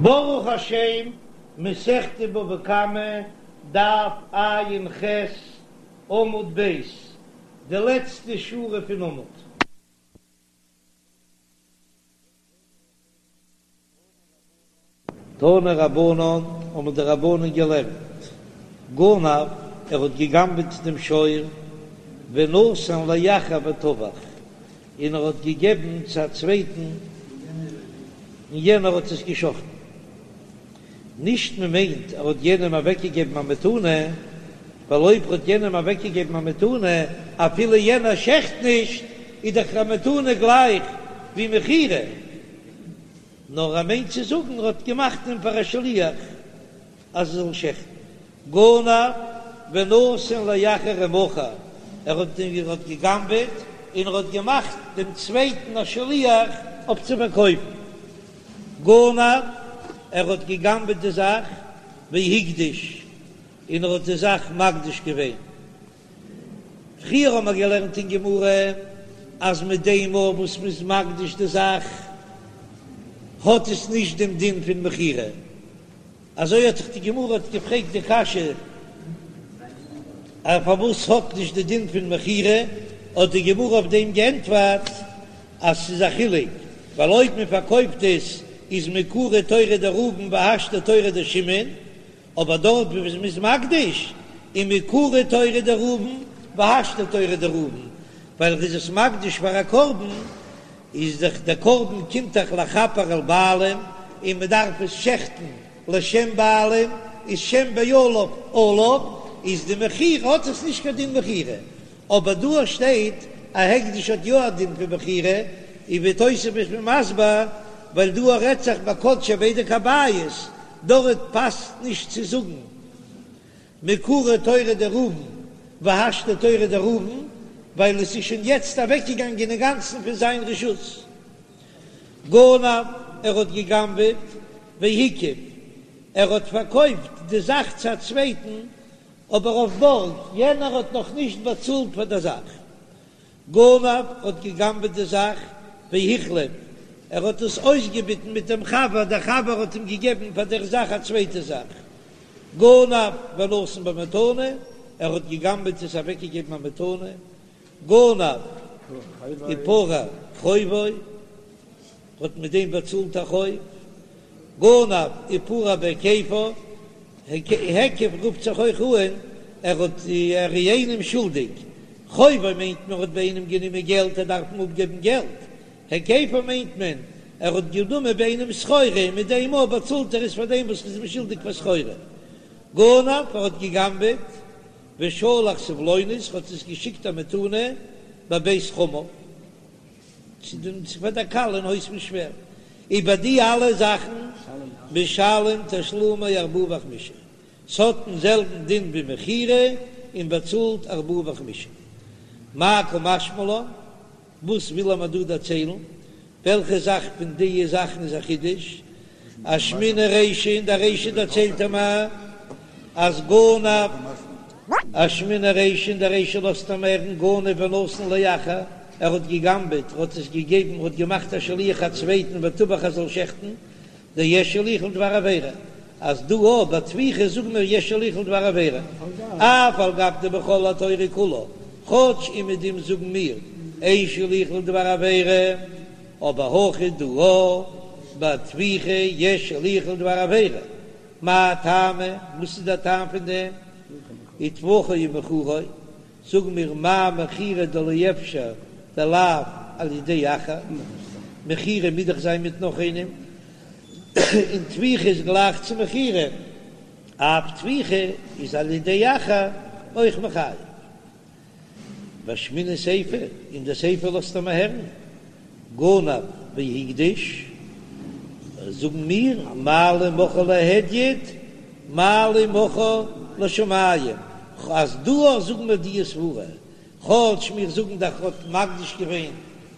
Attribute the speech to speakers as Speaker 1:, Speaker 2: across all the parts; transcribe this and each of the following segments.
Speaker 1: ברוך השם, מסכת בבא קמא, דף ע"ח, עמוד ב', די לעצטע שורה פון עמוד. תנו רבנן, האבן די רבנן געלערנט, גנב, ער האט געגנבעט דעם שור, ונתן לאחר וטבח, און ער האט געגעבן צו א צווייטן און יענער האט עס געשחטן. נישט מען מיינט ער האט יענעם אוועקגעגעבן א מתנה, ווייל אויב ער האט יענעם אוועקגעגעבן א מתנה אפילו יענער שעכט נישט, איז דאך א מתנה גלייך ווי מכירה. נאר ער מיינט צו זאגן ער האט געמאכט אים פאר א שליח אז ער זאל שעכטן. גנב ונתן לאחר ומכר, ער האט ער האט געגנבעט און ער האט געמאכט דעם צווייטן א שליח אויף צו פארקויפן. גנב, ער האט געגנבעט די זאך, והקדיש, און ער האט די זאך מקדיש געווען. פריער האבן מיר געלערנט אין גמרא אז מיט דעם מאל וואס מ'איז מקדיש די זאך האט עס נישט דעם דין פון מכירה. אזוי האט זיך די גמרא האט געפרעגט די קשיא אז פארוואס האט נישט די דין פון מכירה, האט די גמרא אויף דעם געענטפערט אז ס'איז א חילוק, ווייל אויב מען פארקויפט עס איז מעיקרא תורא דראובן והשתא תורא דשמעון, אבער דארט וואו מ'איז מקדיש איז מעיקרא תורא דראובן והשתא תורא דראובן, ווייל ער איז עס מקדיש פאר א קרבן, איז דאך דער קרבן קומט דאך לכפר על בעלים און מען דארף עס שעכטן לשם בעלים, איז שם בעליו עליו, איז די מכירה האט עס נישט קיין דין מכירה, אבער דא שטייט א הקדש האט יא א דין פון מכירה, און ווי תוספות איז מסביר, ווייל דא רעדט זיך ביי קדשי בדק הבית, דארט פאסט נישט צו זאגן מעיקרא תורא דראובן והשתא תורא דראובן, ווייל עס איז שוין יעצט אוועקגעגאנגען אינגאנצן פון זיין רשות. גנב, ער האט גע'גנב'עט, והקיף, ער האט פארקויפט די זאך צו א צווייטן, אבער אויף בארג, יענער האט נאך נישט באצאלט פאר דער זאך. גנב האט גע'גנב'עט די זאך, והחליף, ער האט עס אויסגעביטן מיט דעם חבר, דער חבר האט אים געגעבן פאר דער זאך א צווייטע זאך. גנב ונתן במתנה, ער האט גע'גנב'עט עס אוועקגעגעבן א מתנה. גנב ופרע חובו, האט מיט דעם באצאלט א חוב. גנב ופרע בהיקפו, היקף רופט זיך אויך אן, ער האט ער איז איינעם שולדיג, חובו מיינט מען האט ביי איינעם גענומען געלט ער דארף אים אפגעבן געלט, היקפו מיינט מען ער האט גענומען ביי איינעם סחורה און מיט דעם מאל באצאלט ער עס פאר דעם וואס איז אים שולדיג פאר סחורה. גנב ער האט געגנבעט ושלח סבלונות האט עס געשיקט א מתנה בבית חמיו. צו דעם צו פאר דער כלה אין הויז פון שווער, איבער די אלע זאכן משלם תשלומי ארבעה וחמישה, ס'האט דעם זעלבן דין ווי מכירה און באצאלט ארבעה וחמישה. מאי קא משמע לן, וואס וויל ער מיר דא דערציילן? וועלכע זאך פון די זאכן איז א חידוש? אשמעינן רישא, אין דער רישא דערציילט ער מיר אז גנב. אשמעינן רישא, אין דער רישא לאזט ער מיר הערן גנב ונתן לאחר, ער האט געגנבעט, ער האט עס געגעבן, ער האט געמאכט א שליח א צווייטן וטבח ער זאל שעכטן, דיש שליח לדבר עבירה, אז דא אויך ביי טביחה זאגן מיר יש שליח לדבר עבירה, אף על גב דבכל התורה כולה, כאטש אומעדום זאגן מיר אין שליח לדבר עבירה, אבער הכא דא ביי טביחה יש שליח לדבר עבירה, מאי טעמא, וואס איז דער טעם פון דעם? וטבחו ומכרו, זאג מיר מה מכירה דלא אפשר דלאו על ידי אחר, מכירה מוז דאך זיין מיט נאך איינעם, און טביחה איז גלייך צו מכירה, אף טביחה איז על ידי אחר אויך מחייב. ואשמעינן סיפא, אין די סיפא לאזט ער מיר הערן, גנב והקדיש, זאגן מיר, מה לי מכרו להדיוט, מה לי מכרו לשמים, אז דא אויך זאגן מיר די סברה, כאטש מיר זאגן דאך האט מקדיש געווען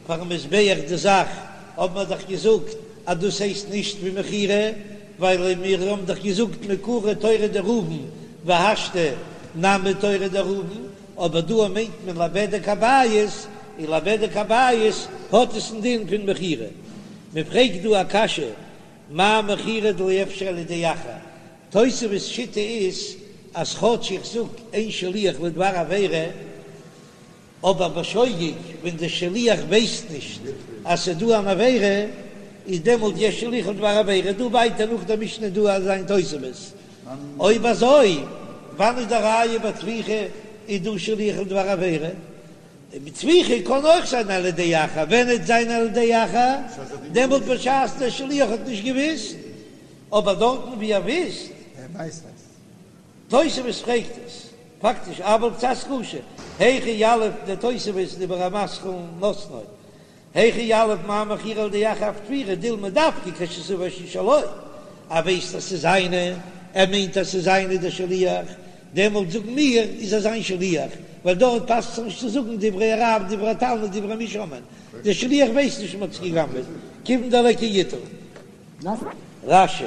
Speaker 1: פארן מזבח די זאך, האבן מיר דאך געזאגט אז דאס הייסט נישט ווי מכירה, ווייל מיר האבן דאך געזאגט מעיקרא תורא דראובן והשתא נמי תורא דראובן, אבער דא מיינט מען לבדק הבית, און לבדק הבית האט עס א דין פון מכירה. מען פרעגט דא א קשיא. מה מכירה דלא אפשר על ידי אחר, תוספות שיטה איז אז כאטש איך זאג אין שליח לדבר עבירה, אבער בשוגג ווען דער שליח ווייסט נישט אז ס'איז דא אן עבירה, איז דעמאלט יש שליח לדבר עבירה, דא ווייטער נאך דער משנה דא אזא איין תוספות, אויב אזוי וואנען איז די ראיה ביי טביחה איז דא שליח לדבר עבירה? טביחה קען אויך זיין על ידי אחר, ווען וועט זיין על ידי אחר? דעמאלט בשעת דער שליח האט נישט געוויסט, אבער דארטן ווי ער וויסט. תוספות פרעגט עס פאקטיש אבל קצת קשה, היכי יליף דער תוספות דיבור המתחיל נתנו, היכי יליף מה מכירה על ידי אחר אף טביחה דילמא דווקא כשסבור שהיא שלו, ער ווייסט אז ס'איז זיינע, ער מיינט אז ס'איז זיינע דער שליח, דעמאלט זאגן מיר איז ער זיין שליח, ווייל דארט פאסט זיך נישט צו זאגן דברי הרב דברי התלמיד דברי מי שומעין, דער שליח ווייסט נישט מ'האט עס גע'גנב'עט, כיוון דליכא ייתור. רש"י,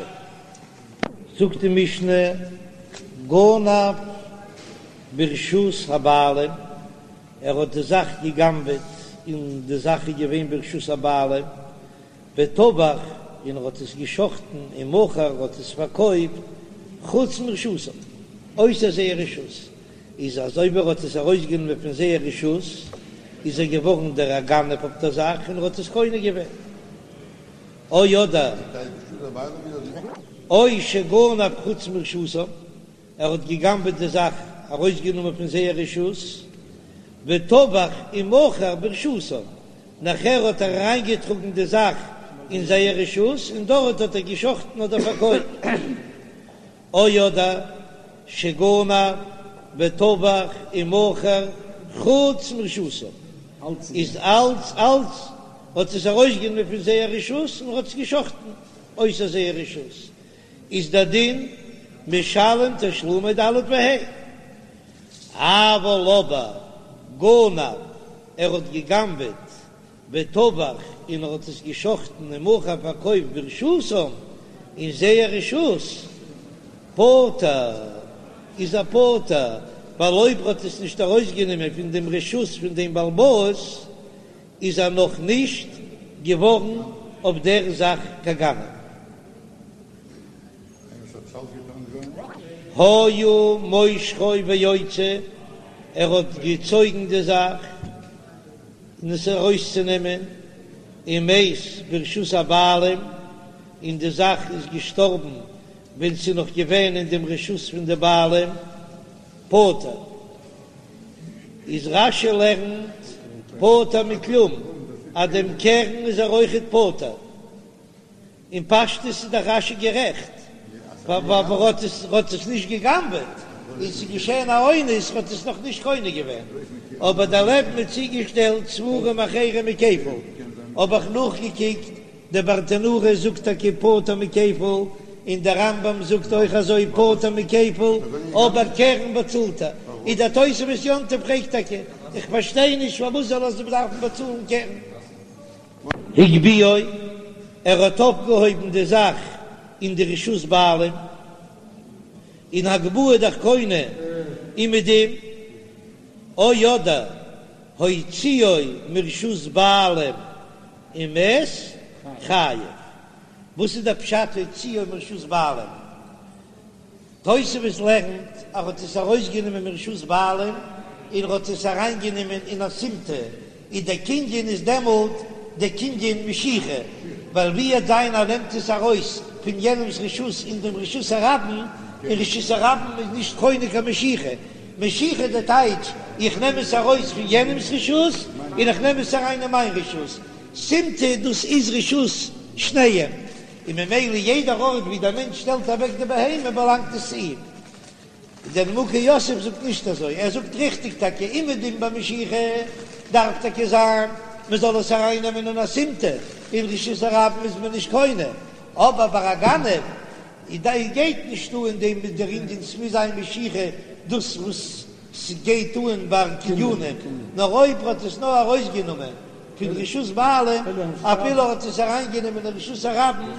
Speaker 1: זאגט די משנה, גנב ברשות הבעלים, ער האט די זאך גע'גנב'עט און די זאך איז געווען ברשות הבעלים, וטבח, און ער האט עס גע'שחט'ן ומכר, ער האט עס פארקויפט, חוץ מרשותם, אויסער זייער רשות, איז אז אויב ער האט עס ארויסגענומען פון זייער רשות, איז ער געווארן דער גנב אויף דער זאך און ער האט עס קונה געווען. או אדער או שגנב חוץ מרשותם, ער האט געגנבעט די זאך, ארויסגענומען פון זייער רשות, וטבח ומכר ברשותם, נאכער האט ער אריינגעטראגן די זאך אין זייער רשות און דארט האט ער געשחטן אדער פארקויפט. או אדער שגנב וטבח ומכר חוץ מרשותם, איז אלץ אלץ האט עס ארויסגענומען פון זייער רשות און האט עס געשחטן אויסער זייער רשות, איז דער דין משלם תשלומי ד' וה'. אבל אבער גנב ער האט געגנבעט וטבח און ער האט עס געשחטן ומכר פארקויפט ברשותם אין זייער רשות, פטור איז ער פטור, ווייל אויב ער האט עס נישט ארויסגענומען פון דעם רשות פון דעם בעל הבית איז ער נאך נישט געווארן אויף דער זאך קיין גנב. היה מושכו ויוצא, ער האט געצויגן די זאך. און עס ארויסצונעמען, ומת ברשות הבעלים, און די זאך איז געשטארבן ווען ס'איז נאך געווען אין דעם רשות פון די בעלים, פטור. איז רש"י לערנט פטור מכלום, אז דעם קרן איז ער אויכעט פטור. אין פשטות איז דאך רש"י גערעכט, ווייל ער האט עס האט עס נישט גע'גנב'עט, און ס'איז געשען א אונס, האט עס נאך נישט קונה געווען, אבער דערלעבן איז צוגעשטעלט ספרים אחרים מכפל, האב איך נאכגעקוקט, דער ברטנורא זאגט טאקע פטור מכפל, און דער רמב"ם זאגט אויך אזוי פטור מכפל, אבער קרן באצאלט ער, איז דער תוספות יום טוב פרעגט טאקע, איך פארשטיי נישט פארוואס זאל ער דארפן באצאלן קרן. הגביהו, ער האט אויפגעהויבן די זאך אין די רשות בעלים, און הגבהה דאך קונה אומעדום, או אדער הוציאו מרשות בעלים ומת חייב. וואס איז דער פשט הוציאו מרשות בעלים? תוספות לערנט אז ער האט עס ארויסגענומען מרשות בעלים און ער האט עס אריינגענומען אין א סימטא, און דער קנין איז דעמאלט דער קנין משיכה, ווייל ווי עט זיין ער נעמט עס ארויס פון יענעמס רשות אין דעם רשות הרבים, און רשות הרבים איז נישט קונה קיין משיכה, משיכה די טייטש איך נעם עס ארויס פון יענעמס רשות און איך נעם עס אריין אין מיין רשות, סימטא דאס איז רשות שניהם. און ממילא יעדער ארט ווי דער מענטש שטעלט אוועק די בהמה באלאנגט עס צו אים. דער נימוקי יוסף זאגט נישט אזוי, ער זאגט ריכטיג טאקע אומעדום ביי משיכה דארף טאקע זיין מען זאל עס אריין נעמען אין א סימטא, אין רשות הרבים איז מען נישט קונה, אבער ביי א גנב איז גייט נישט אן דעם דער ענין ס'מוז זיין משיכה דאס וואס ס'גייט אן ביי קנינים, נאר אויב ער האט עס נאר ארויסגענומען פון רשות בעלים, אפילו ער האט עס אריינגענומען אין רשות הרבים,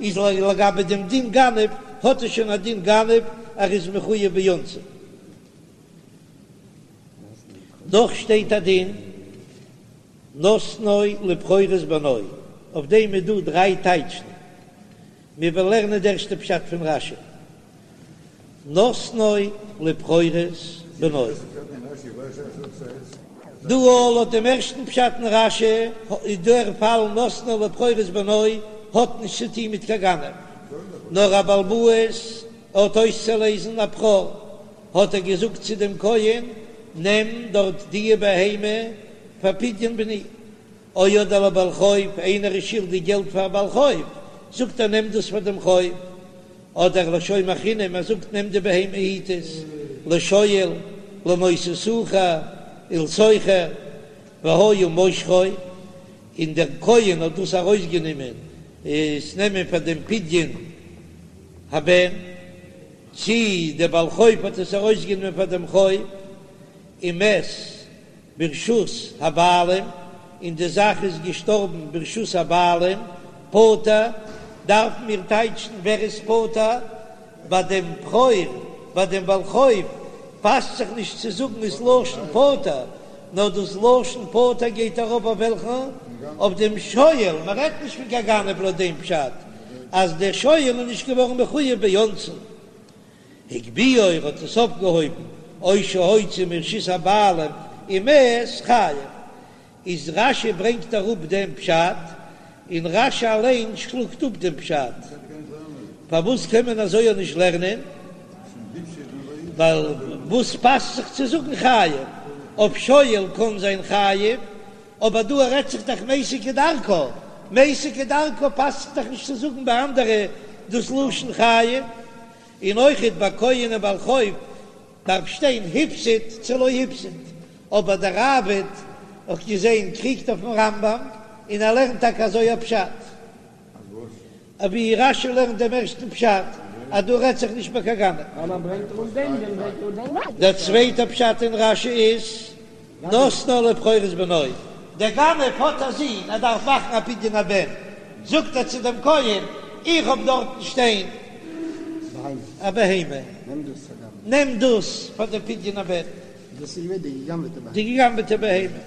Speaker 1: איז לגבי דעם דין גנב, האט עס שוין א דין גנב, ער איז מחויב באונסין. נאך שטייט א דין, נתנו לבכורות בנו, אויף דעם איז דא דריי טייטשן. מיר וועלן לערנען די ערשטע פשט פון רש"י, נתנו לבכורות בנו. דא לויט דעם ערשטן פשט אין רש"י איז דער פאל נתנו לבכורות בנו האט נישט צו טון מיט קיין גנב, נאר א בעל הבית האט אויסצולייזן א בכור, האט ער געזאגט צו דעם כהן, נעם דארט דיע בהמה פאר פדיון בני. או אדער לבעל חוב, איינער איז שולדיג געלט פאר א בעל חוב, זאגט ער נעם דאס פאר דעם חוב, אדער לשומר חינם, ער זאגט נעם די בהמה היט עס, לשואל, לנושא שכר, ולשוכר, והיה מושכו, און דער כהן האט דאס ארויסגענומען עס נעמען פאר דעם פדיון הבן, צי דער בעל חוב האט עס ארויסגענומען פאר דעם חוב, ומת. ברשות הבעלים, און די זאך איז געשטארבן ברשות הבעלים, פטור, דארפן מיר טייטשן ווער איז פטור, ביי דעם בכור, ביי דעם בעל חוב, פאסט זיך נישט צו זאגן דאס לשון פטור, נאר דאס לשון פטור גייט ארויף אויף וועלכן? אויף דעם שואל, מען רעדט נישט פון קיין גנב לויט דעם פשט אז דער שואל איז נישט געווארן מחויב באונסין. הגביהו ער האט עס אויפגעהויבן או שהוציא מרשות הבעלים ומת חייב איז רש"י ברענגט אראפ דעם פשט און רש"י אליין שלאגט אפ דעם פשט פארוואס קען מען אזוי אויך נישט לערנען ווייל וואס פאסט זיך צו זאגן חייב אויף שואל קען זיין חייב אבער דא רעדט זיך דאך מתה כדרכה מתה כדרכה פאסט זיך דאך נישט צו זאגן ביי אנדערע דאס לשון חייב. און אויכעט ביי כהן און בעל חוב דארף שטיין הפסיד צו לא הפסיד, אבער דער ראב"ד האט געזען קריגט אויפן רמב"ם און ער לערנט טאקע אזוי א פשט, אווי רש"י לערנט דעם ערשטן פשט אז דא רעדט זיך נישט ביי קיין גנב. דער צווייטער פשט אין רש"י איז נתנו לבכורות בנו, דער גנב האט א זון, ער דארף מאכן א פדיון הבן, זאגט ער צו דעם כהן, איך האב דארטן שטיין א בהמה, נעם דאס פאר דעם פדיון הבן, די געגנבעטע בהמה,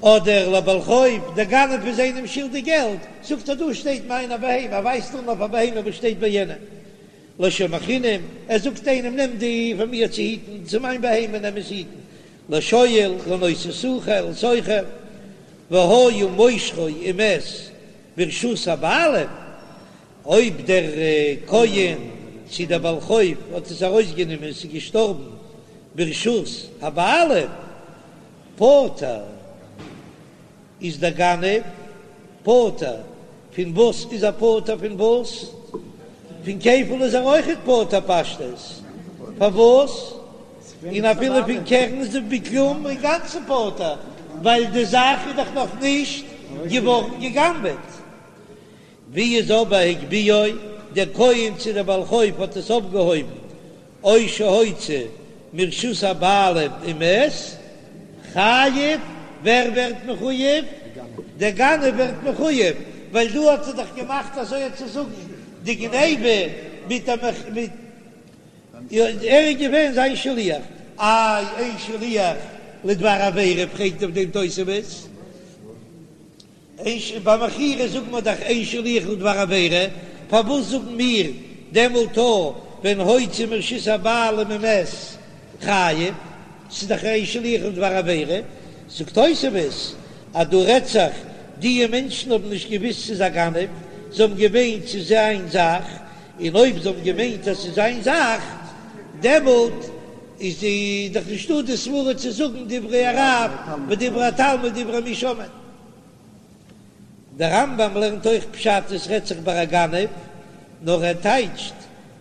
Speaker 1: אדער לבעל חוב, דער גנב איז איינעם שולדיג געלט, זאגט ער, דא שטייט מיין א בהמה, ער ווייזט אן אויף א בהמה וואס שטייט ביי יענעם. לשומר חינם, ער זאגט איינעם נעם די פאר מיר צו היטן, צו מיין בהמה נעם עס היטן, לשואל, לנושא שכר, ולשוכר, והיה מושכו ומת ברשות הבעלים, אויב דער כהן צו דער בעל חוב האט עס ארויסגענומען און עס איז געשטארבן ברשות הבעלים, פטור. איז דער גנב פטור פון וואס איז ער פטור פון וואס? פון כפל איז ער אויכעט פטור פשטות פארוואס? און אפילו פון קרן איז ער בכלום אינגאנצן פטור ווייל די זאך איז דאך נאך נישט געווארן גע'גנב'עט. ווי איז אבער הגביהו, דער כהן צו דער בעל חוב האט עס אויפגעהויבן או שהוציא מרשות הבעלים ומת חייב, ווער ווערט מחוייב? דער גנב ווערט מחוייב, ווייל דא האט ער דאך געמאכט אזוי צו זאגן די גניבה מיט א מיט ער איז געווען זיין שליח, איי אין שליח לדבר עבירה פרעגט אויף דעם תוספות. אין ש ביי מכירה זאגן מיר דאך אין שליח לדבר עבירה, פארוואס זאגן מיר דעמאלט אויך ווען הוציא מרשות הבעלים ומת חייב, ס'איז דאך אין שליח לדבר עבירה, זאגט תוספות אז דא רעדט זיך דיע מענטשן האבן נישט געוויסט ס'איז א גנב, זיי האבן געמיינט ס'איז זיין זאך, און אויב זיי האבן געמיינט אז ס'איז זיין זאך דעמאלט איז דאך נישטא די סברה צו זאגן דברי הרב ודברי התלמיד דברי מי שומעין. דער רמב"ם לערנט אויך פשט עס רעדט זיך ביי א גנב, נאר ער טייטשט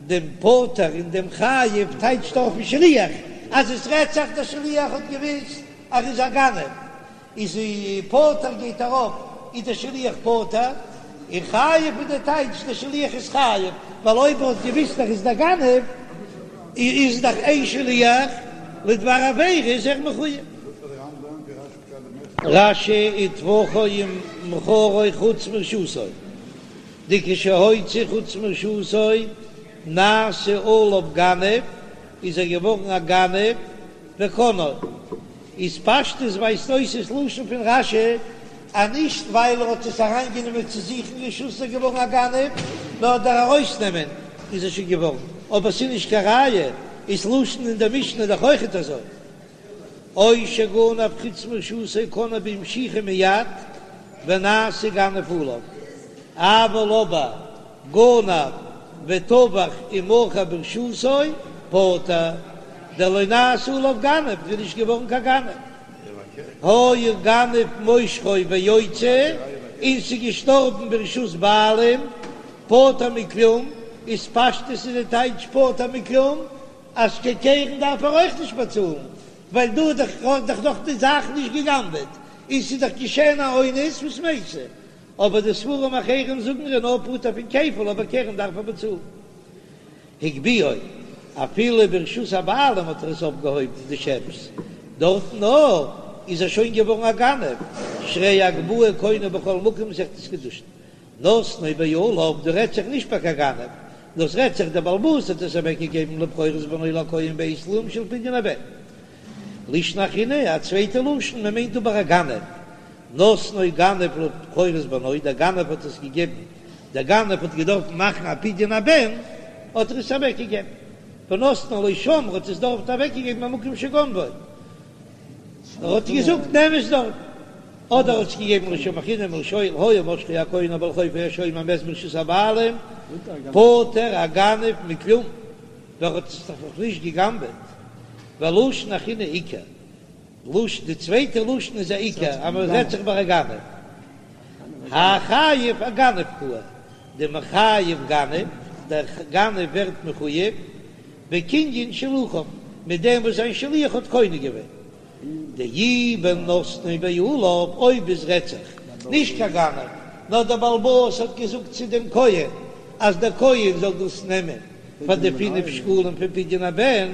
Speaker 1: דעם פטור און דעם חייב טייטשט ער אויפן שליח, אז עס רעדט זיך דער שליח האט געוויסט אז ער איז א גנב, איז פטור גייט ארויף איז דער שליח פטור, און חייב איז דער טייטש דער שליח איז חייב, ווייל אויב ער האט געוויסט ער איז דער גנב איז דאך אין שליח לדבר עבירה איז ער מחויב. רש"י וטבחו ומכרו חוץ מרשותו, דכשהוציא חוץ מרשותו נעשה עליו גנב, איז ער געווארן א גנב וקנאו, איז פשטות ווייזט אויס ס'לשון פון רש"י. אז נישט ווייל ער האט עס אריינגענומען צו זיך אין רשות איז ער געווארן א גנב, נאר דער ארויסנעמען איז ער שוין געווארן, אבער ס'איז נישט קיין ראיה, איז לשון אין דער משנה דאך אויכעט אזוי. או שגנב חוץ מרשותו קנאו במשיכה מיד ונעשה גנב עליו, אבל אבער גנב וטבח ומכר ברשותו פטור, דלא נעשה עליו גנב, איז נישט געווארן קיין גנב. היה גנב מושכו ויוצא, און ס'איז געשטארבן ברשות בעלים, פטור מכלום, איז פשטות איז די טייטש פטור מכלום, אז קיין קרן דארף ער אויך נישט באצאלן, ווייל דא האט דאך האט דאך נאך די זאך נישט גע'גנב'עט, און ס'איז דאך געשען א אונס וואס מתה. אבער די ספרים אחרים זאגן ער איז נאר פטור פון כפל, אבער קרן דארף ער באצאלן. הגביהו, אפילו ברשות הבעלים האט ער עס אויפגעהויבן די שעפס, דארטן נאר איז ער שוין געווארן א גנב, שהרי הגבהה קונה בכל מקום מסכת קידושין. נתנו בעליו, דא רעדט זיך נישט ביי קיין גנב, דאס רעדט זיך דער בעל הבית האט עס אוועק געגעבן לבכורות בנו לכהן בעת סלעים של פדיון הבן. לישנא אחרינא, א צווייטע לשון, מען מיינט אבער א גנב. נתנו גנב לבכורות בנו, דער גנב האט עס געגעבן, דער גנב האט געדארפט מאכן א פדיון הבן, האט ער עס אוועק געגעבן. ונתנו לו שם, ער האט עס דארט אוועק געגעבן במקום שגנבו. ער האט געזאגט נעם עס דארט. אדער האט עס געגעבן לשומר חינם ולשואל היה משכו הכהן או בעל חוב או השומר ומת ברשות הבעלים פטור הגנב מכלום ווייל ער האט עס דאך נאך נישט געגנבעט ולשון אחרינא עיקר לשון די צווייטע לשון איז א עיקר אז מען רעדט זיך ביי א גנב האי חייב אגנב קאי דמחייב גנב דער גנב ווערט מחוייב בקנין שלוחיו מיט דעם וואס זיין שליח האט קונה געווען. דאי בנתנו בעליו, אויב עס רעדט זיך נישט קיין גנב, נאר דער בעל הבית האט געזאגט צו דעם כהן אז דער כהן זאל דאס נעמען פאר די פינף שקלים פון פדיון הבן,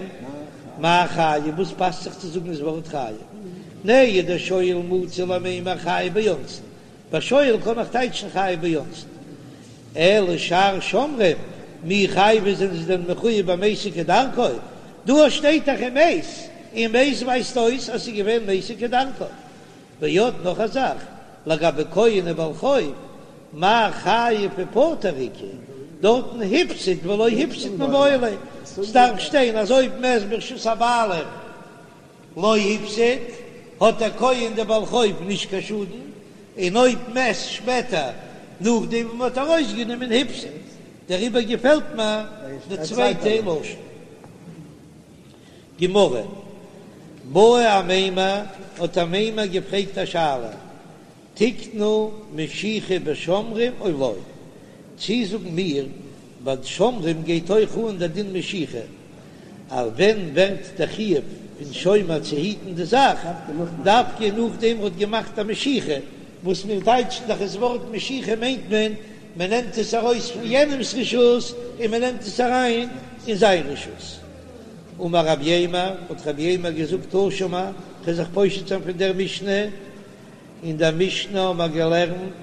Speaker 1: מאי חייב, וואס פאסט זיך צו זאגן דאס ווארט חייב? נהי דשואל מצי למימר חייב באונסין, ביי שואל קען איך טייטשן חייב באונסין, אלא שאר שומרים מי חייבי זענען זיי דען מחויב במתו כדרכו? דא שטייט דאך ומת, און מת ווייזט אויס אז ס'איז געווען מתו כדרכו. ועוד נאך א זאך, לגבי כהן ובעל חוב, מאי חייב ופטור איכא, דארטן הפסיד ולא הפסיד מיבעי ליה, ס'דארף שטיין אז אויב מת ברשות הבעלים לא הפסיד, האט דער כהן דער בעל חוב נישט קיין שאדן, און אויב מת שפעטער נאכדעם וואס מ'האט ארויסגענומען הפסיד, דעריבער געפעלט מיר די צווייטע לשון. גמרא, בעי אמימר, האט אמימר געפרעגט א שאלה, תקנו משיכה בשומרים או לא? צי זאגן מיר ביי שומרים גייט אויך אן דער דין משיכה, אז ווען ווערט דער חיוב פון שומר צו היטן די זאך, דווקא נאכדעם ער האט געמאכט א משיכה, וואס מיר טייטשן דאך עס ווארט משיכה מיינט מען, מען נעמט עס ארויס פון יענעמס רשות און מען נעמט עס אריין אין זיין רשות. אמר רב יימר, האט רב יימר געזאגט תא שמע, כ'וועל זיך פושט זיין פון דער משנה, אין דער משנה האבן מיר געלערנט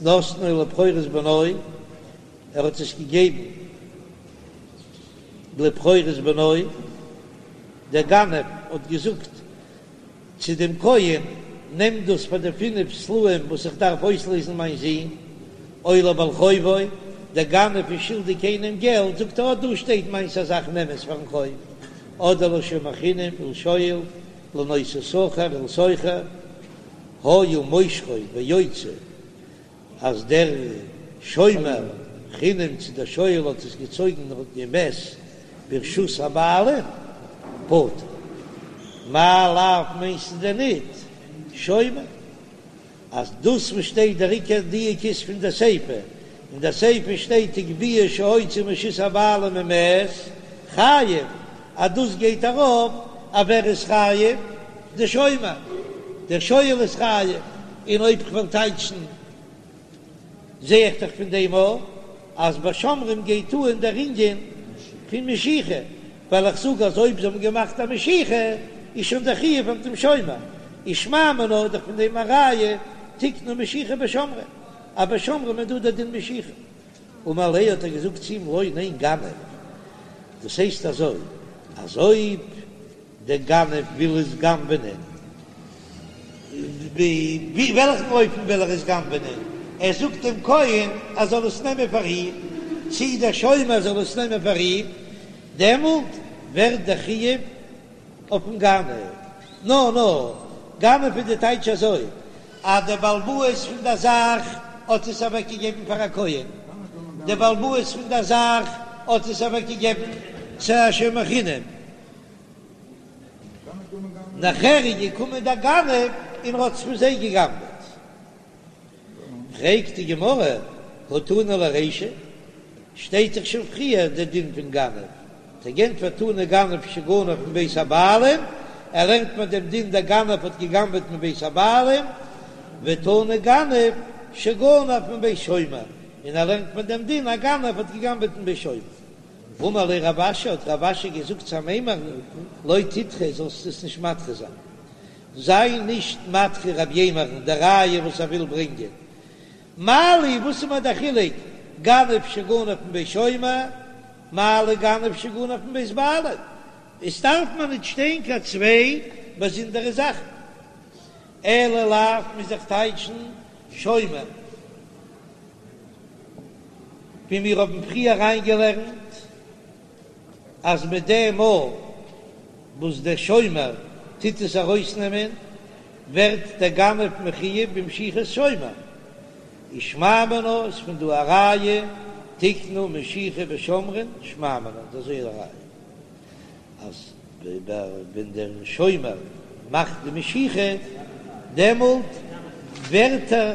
Speaker 1: נתנו לבכורות בנו, ער האט עס געגעבן לבכורות בנו, דער גנב האט געזאגט צו דעם כהן, נעם דאס פאר די פינף סלעים וואס איך דארף אויסלעזן מיין זון, או לבעל חובו, דער גנב איז שולדיג איינעם געלט, זאגט ער, אט דא שטייט מיינס א זאך, נעם עס פארן חוב, אדער לשומר חינם ולשואל, לנושא שכר ולשוכר, היה מושכו ויוצא, אז דער שומר חינם צו דער שואל האט עס געצויגן און ומת ברשות הבעלים, פטור. מאי לאו מיינסטו דען ניט שומר? אז דאס וואס שטייט דער עיקר דיוק איז פון די סיפא, אין די סיפא שטייט הגביהו שהוציא מרשות הבעלים ומת חייב, אז דאס גייט ארויף אויף ווער איז חייב, די שומר, דער שואל איז חייב, און אויב כ'וועל טייטשן זע איך דאך פון דעם אויך אז ביי שומרים גייט אן דער ענין פון משיכה, ווייל איך זאג אז אויב זיי האבן געמאכט א משיכה איז שוין דער חיוב אויף דעם שומר, איז שמע מינה איז דאך פון דעם א ראיה תקנו משיכה בשומרים, אז ביי שומרים איז דא דער דין משיכה. אמר ליה האט ער געזאגט צו אים לא ניין גנב, דאס הייסט אזוי אז אויב דער גנב וויל עס גנב'נען. ווי וועלכן אופן וויל ער עס גנב'נען? ער זאגט דעם כהן ער זאל עס נעמען פאר אים, צי דער שומר זאל עס נעמען פאר אים, דעמאלט ווערט דער חיוב אויפן גנב. נא נא, גנב איז די טייטש אזוי, אז דער בעל הבית פון דער זאך האט עס אוועקגעגעבן פאר א כהן, דער בעל הבית פון דער זאך האט עס אוועקגעגעבן צו א שומר חינם. נאכער איז געקומען דער גנב און האט עס פון זיי געגנבעט. פרעגט די גמרא, הא תנא ליה רישא, שטייט דאך שוין פריער דער דין פון גנב, האט ער געענטפערט תנא גנב שגנב מבית הבעלים, ער לערנט מיר דעם דין דער גנב האט געגנבעט מבית הבעלים, ותנא גנב שגנב מבית שומר, און ער לערנט מיר דעם דין א גנב האט געגנבעט מבית שומר. אמר ליה רב אשי, האט רב אשי געזאגט צו אמימר'ן, לא תדחה, זאלסט עס נישט מדחה זיין. זיי נישט מדחה רב יימר'ן די ראיה וואס ער וויל ברענגען. מה לי, וואס איז מיר דער חילוק, גנב שגנב מבית שומר, מה לי גנב שגנב מבית בעלים? עס דארף מיר נישט שטיין קיין צוויי באזונדערע זאכן. אלא לאו מוז איך טייטשן שומר. ווי מיר האבן פריער אריינגעלערנט אז מיט דעם מאל וואס דער שומר טוט עס ארויסנעמען ווערט דער גנב מחויב במשיכת שומר, ושמע מינה איז פון דא א ראיה תקנו משיכה בשומרין שמע מינה דאס איז א ראיה. אז ווען דער שומר מאכט די משיכה דעמאלט ווערט ער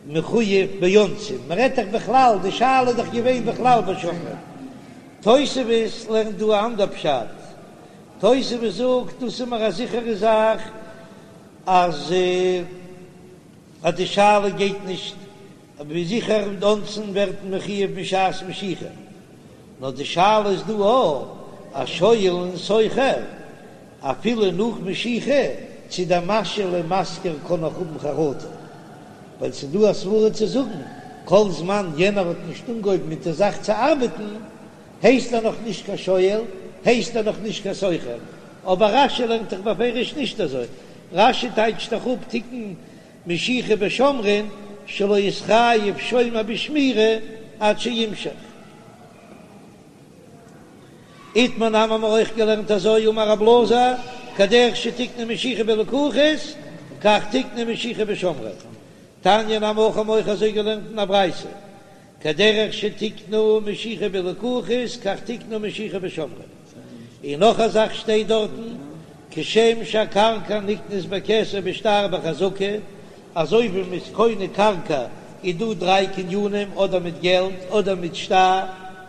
Speaker 1: מחויב באונסין, מען רעדט דאך בכלל, די שאלה איז דאך געווען בכלל בשומרין. תוספות לערנט דא א אנדער פשט, תוספות זאגט דאס איז מיר א זיכערע זאך אז אז די שאלה גייט נישט ווי זיכער אונסין ווערט מען מחויב בשעת משיכה, נאר די שאלה איז דא אויך א שואל און שוכר אפילו נאך משיכה צו דער משאיל און משכיר קען נאך האבן חרטה, ווייל ס'איז דא א סברה צו זאגן כל זמן יענער האט נישט אנגעהויבן מיט די זאך צו ארבעטן הייסט ער נאך נישט קיין שואל, הייסט ער נאך נישט קיין שוכר, אבער רש"י לערנט דאך בפירוש נישט אזוי, רש"י טייטשט דאך אפ תקנו משיכה בשומרין שלא יתחייב שומר בשמירה עד שימשוך. איתמר נמי האבן מיר אויך געלערנט אזוי אמר רב אלעזר כדרך שתקנו משיכה בלקוחות כך תקנו משיכה בשומרין. תניא נמי הכי האבן מיר אויך אזוי געלערנט אין א ברייתא כדרך שתקנו משיכה בלקוחות כך תקנו משיכה בשומרין, און נאך א זאך שטייט דארטן, כשם שהקרקע נקנית בכסף בשטר בחזקה, אזוי ווי מ'איז קונה קרקע איז דא דריי קנינים אדער מיט געלט אדער מיט שטר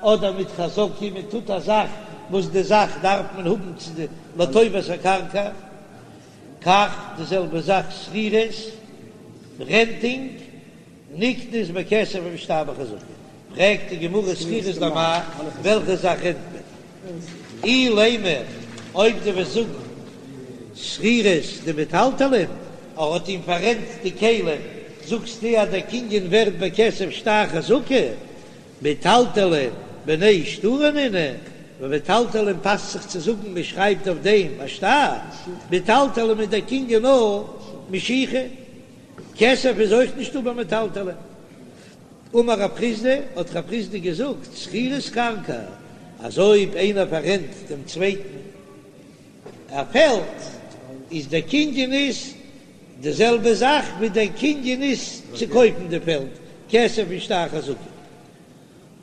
Speaker 1: אדער מיט חזקה, מען טוט א זאך וואס די זאך דארף מען האבן צו די לטובת הקרקע, כך די זעלבע זאך שכירות, רענטינג. נקנית בכסף ובשטר בחזקה, פרעגט די גמרא שכירות למאי, וועלכע זאך רענט מען? אילימא, אויב דו וועסט זאגן שכירות דמטלטלין, ער האט אים פאררענט די כלים, זאגסטו אז דער קנין ווערט בכסף שטר חזקה, מטלטלין בני שטרא נינהו, ביי מטלטלין פאסט זיך צו זאגן מען שרייבט אויף דעם א שטר, מטלטלין איז דער קנין נאר משיכה. כסף איז אויך נישטא ביי מטלטלין. אמר רב חסדא, האט רב חסדא געזאגט, שכירות קרקע, אז אויב איינער פאררענט דעם צווייטן א פעלד, איז דער קנין איז די זעלבע זאך ווי דער קנין איז צו קויפן די פעלד, כסף ושטר חזקה.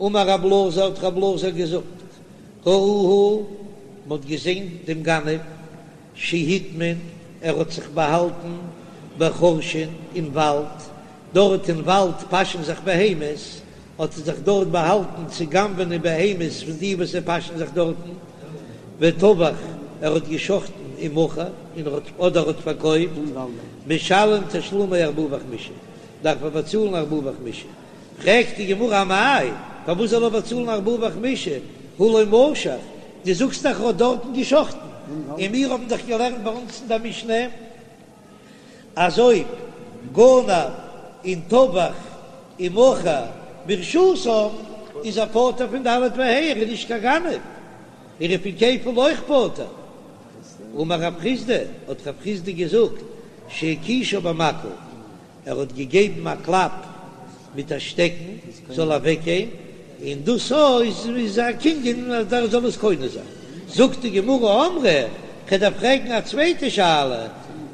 Speaker 1: אמר רב אלעזר, האט רב אלעזר געזאגט, ראוהו, מען האט געזען דעם גנב, שהטמין, ער האט זיך באהאלטן בחורשין אין וואלד, דארט אין וואלד פאשן זיך בהמות, האט ער זיך דארט באהאלטן צו גנב'נען בהמות פון די וואס זיי פאשן זיך דארטן, וטבח, ער האט געשחטן ומכר, און ער האט אדער האט פארקויפט, משלם תשלומי ארבעה וחמישה, דארף ער באצאלן ארבעה וחמישה. פרעגט די גמרא אמאי, פארוואס זאל ער באצאלן ארבעה וחמישה, הא לא משך, דו זאגסט דאך ער האט דארטן געשחטן, און מיר האבן דאך געלערנט ביי אונז אין דער משנה אז אויב גנב און טבח ומכר ברשותם איז ער פטור פון ד' וה', ער איז נישט קיין גנב, ער איז פון כפל אויך פטור. אמר רב חסדא, האט רב חסדא געזאגט. שהכישה במקל, ער האט געגעבן א קלאפ מיט א שטעקן זאל אוועקגיין, און דאס איז א קנין אז ער זאל עס קונה זיין. זאגט די גמרא אמרי, כ'דארף פרעגן א צווייטע שאלה,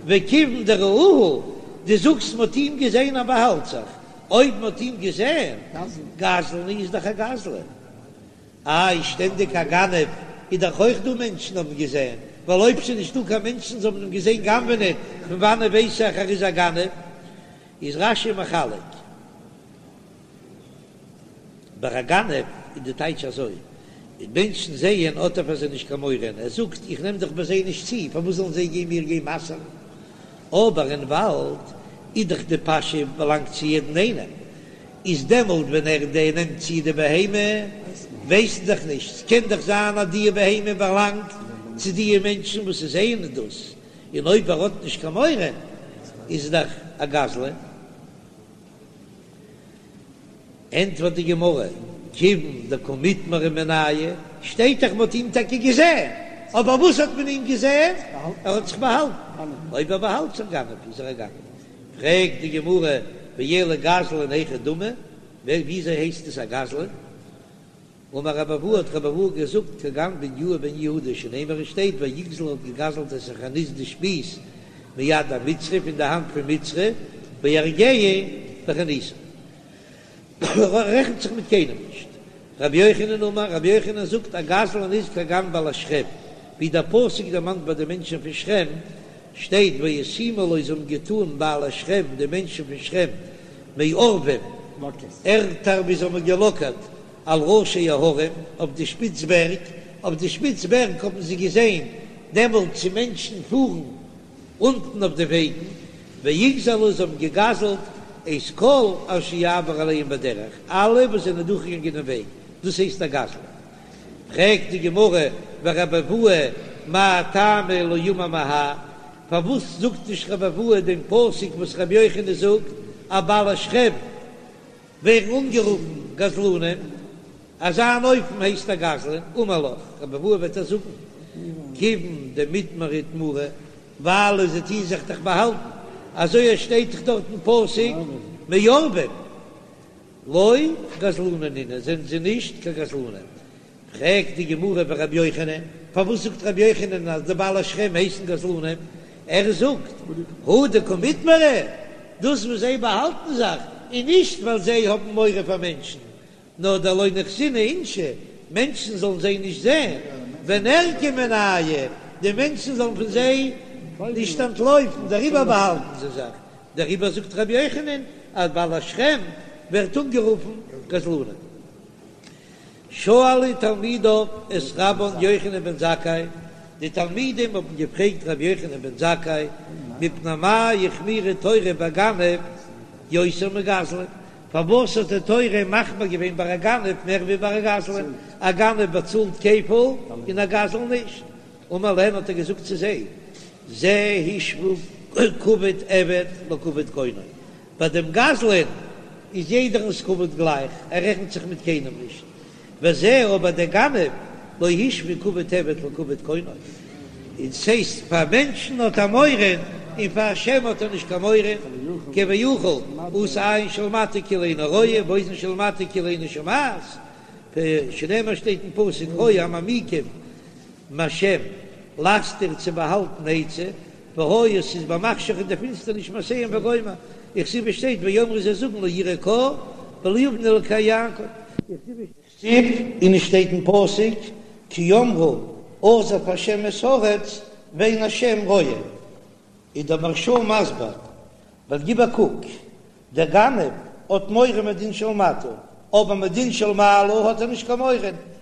Speaker 1: וכיוון דראוהו, דו זאגסט מ'האט אים געזען אז באהאלט זיך, אויב מ'האט אים געזען, גזלן איז דאך א גזלן. איי שטענדיג א גנב איז דאך אויך דא מענטשן האבן געזען, ווייל אויב ס'איז נישטא קיין מענטשן זיי האבן אים געזען גנב'נען, פון וואנען ווייס איך ער איז א גנב? איז רש"י מחלק, ביי א גנב איז די טייטש אזוי, און מענטשן זעען האט ער פאר זיי נישט קיין מורא, ער זאגט איך נעם דאך ביי זיי נישט צו, פארוואס זאלן זיי גיין מיר גיין מסר'ן? אבער אין וואלד איז דאך די פאשע באלאנגט צו יעדן איינעם, איז דעמאלט ווען ער דער נעמט צו די בהמה, ווייסט דאך נישט, ס'קען דאך זיין אז די בהמה באלאנגט צו די מענטשן וואס זעען דאס, און אויב ער האט נישט קיין מורא איז דאך א גזלן. ענטפערט די גמרא, כיוון דקא מיטמרי מינייהו, שטייט דאך מ'האט אים טאקע געזען, אבער וואס האט מען אים געזען? ער האט זיך באהאלטן, אויב ער באהאלט זיך גנב איז ער א גנב. פרעגט די גמרא, ואלא גזלן היכי דמי, וויאזוי הייסט עס א גזלן? אמר רבי אבהו האט רבי אבהו געזאגט כגון בניהו בן יהוידע שנאמר עס שטייט ויגזל האט געגזלט את החנית די שפיז מיד המצרי פון די האנט פון מצרי ויהרגהו בחניתו רעכנט זיך מיט קיינעם נישט. רבי יוחנן אמר רבי יוחנן זאגט א גזלן איז כגון בעלי שכם ווי דער פסוק דערמאנט ביי די מענטשן פון שכם שטייט וישימו לו זיי האבן געטאן בעלי שכם די מענטשן פון שכם מעורבים ערטער ווי זיי האבן געלאקערט על ראשי ההרים, אויף די שפיץ בערג, אויף די שפיץ בערג האבן זיי געזען דעמאלט צו מענטשן פארן אונטן אויף די וועגן, ויגזלו זיי האבן געגזלט את כל אשר יעבור עליהם בדרך, אלע וואס זענען דורכגעגאנגען אין וועג, דאס הייסט א גזלן. פרעגט די גמרא ורבי אבהו מאי טעמא לא אמר מהא, פארוואס זאגט נישט רבי אבהו דעם פסוק וואס רבי יוחנן זאגט אז בעלי שכם ווערן אנגערופן גזלנים, אזא אן אופן הייסט א גזלן, אמר לך, רבי אבהו וועט דיר זאגן, כיוון דמיטמרי איטמורי, ווייל זיי טוען זיך דאך באהאלטן, אזוי עס שטייט דאך דארט אין פסוק מעורבים, לא גזלני נינהו, זענען זיי נישט קיין גזלנים. פרעגט די גמרא ורבי יוחנן, פארוואס זאגט רבי יוחנן אז די בעלי שכם הייסן גזלנים? ער זאגט, הא דקא מיטמרי, דאס וואס זיי באהאלטן זיך איז נישט ווייל זיי האבן מורא פאר מענטשן, נאר דלא ניחזינהו אינשי, מענטשן זאלן זיי נישט זען, וניעלקו מינייהו, די מענטשן זאלן פון זיי נישט אנטלויפן, דעריבער באהאלטן זיי זיך, דעריבער זאגט רבי יוחנן אז בעלי שכם ווערט אנגערופן גזלנים. שאלו תלמידיו את רבן יוחנן בן זכאי, די תלמידים האבן געפרעגט רבי יוחנן בן זכאי, מפני מה החמירה תורה בגנב יותר מגזלן, פארוואס האט די תורה מחמיר געווען ביי א גנב מער ווי ביי א גזלן, א גנב באצאלט כפל און א גזלן נישט, אמר להן האט ער געזאגט צו זיי, זה השוה כבוד עבד לכבוד קונו, ביי דעם גזלן איז יעדערנס כבוד גלייך, ער רעכנט זיך מיט קיינעם נישט, וזה אבער דער גנב לא השוה כבוד עבד לכבוד קונו, און ס'הייסט פאר מענטשן האט ער מורא און פאר השם האט ער נישט קיין מורא, כביכול עשה עין של מטה כאילו אינה רואה ואוזן של מטה כאילו אינה שומעת, שנאמר שטייט אין פסוק הוי המעמיקים מהשם להסתיר צו באהאלטן עצה, והיה ס'איז במחשך אין די פינסטערניש מעשיהם וגומר, וכתיב שטייט ויאמרו זיי זאגן לא יראה קה ולא יבין אלקי יעקב. וכתיב און עס שטייט אין פסוק כי אמרו עזב השם את הארץ ואין השם רואה, איז דער מהרש"א מסביר, ווייל גיב א קוק, דער גנב האט מורא מדין של מטה, אבער מדין של מעלה האט ער נישט קיין מורא,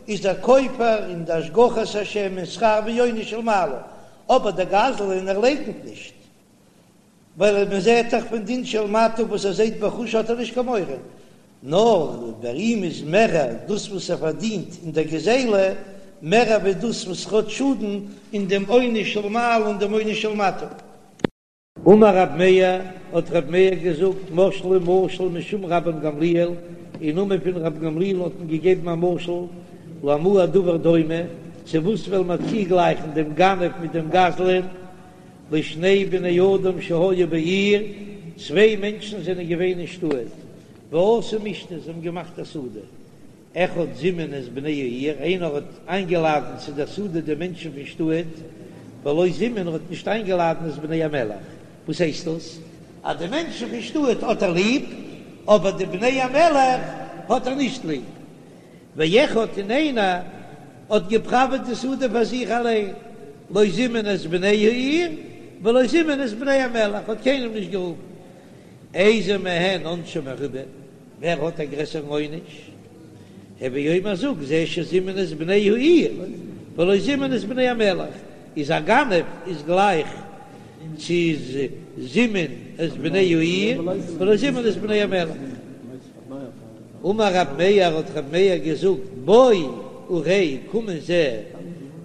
Speaker 1: איז ער כופר אין די השגחת השם און שכר ועונש של מעלה, אבער דער גזלן ער לייקנט נישט, ווייל מען זעט דאך פון דין של מטה וואס ער זעט בחוש האט ער נישט קיין מורא, נאר ביי אים איז מערער דאס וואס ער פארדינט אין דער גזילה, מערער ווי דאס וואס ער האט שאדן אין דעם עונש של מעלה און דעם עונש של מטה. אמר רב מאיר, האט רב מאיר געזאגט, משלו משל משום רבן גמליאל, אין נאמען פון רבן גמליאל האט מען געגעבן א משל, למה הדבר דומה, צו וואס וועל מען צוגלייכן דעם גנב מיט דעם גזלן? לשני בני אדם שהיו בעיר, צוויי מענטשן זענען געווען אין שטאט, ועשו משתה, זיי האבן געמאכט א סעודה, אחד זימן את בני העיר, איינער האט איינגעלאדענט צו דער סעודה די מענטשן פון שטאט, ולא זימן האט נישט איינגעלאדענט את בני המלך, וואס הייסט דאס? אז די מענטשן פון שטאט האט ער ליב, אבער די בני המלך האט ער נישט ליב. ואחד און איינער האט געפראוועט די סעודה פאר זיך אליין, לא זימן את בני העיר ולא זימן את בני המלך, האט קיינעם נישט גערופן. איזה מהן עונשו מרובה, ווער האט א גרעסערן עונש? הוי אומר זאג, זה שזימן את בני העיר ולא זימן את בני המלך, איז א גנב איז גלייך צו זימן את בני העיר ולא זימן את בני המלך. אמר רב מאיר האט רב מאיר געזאגט בוא וראה קום און זע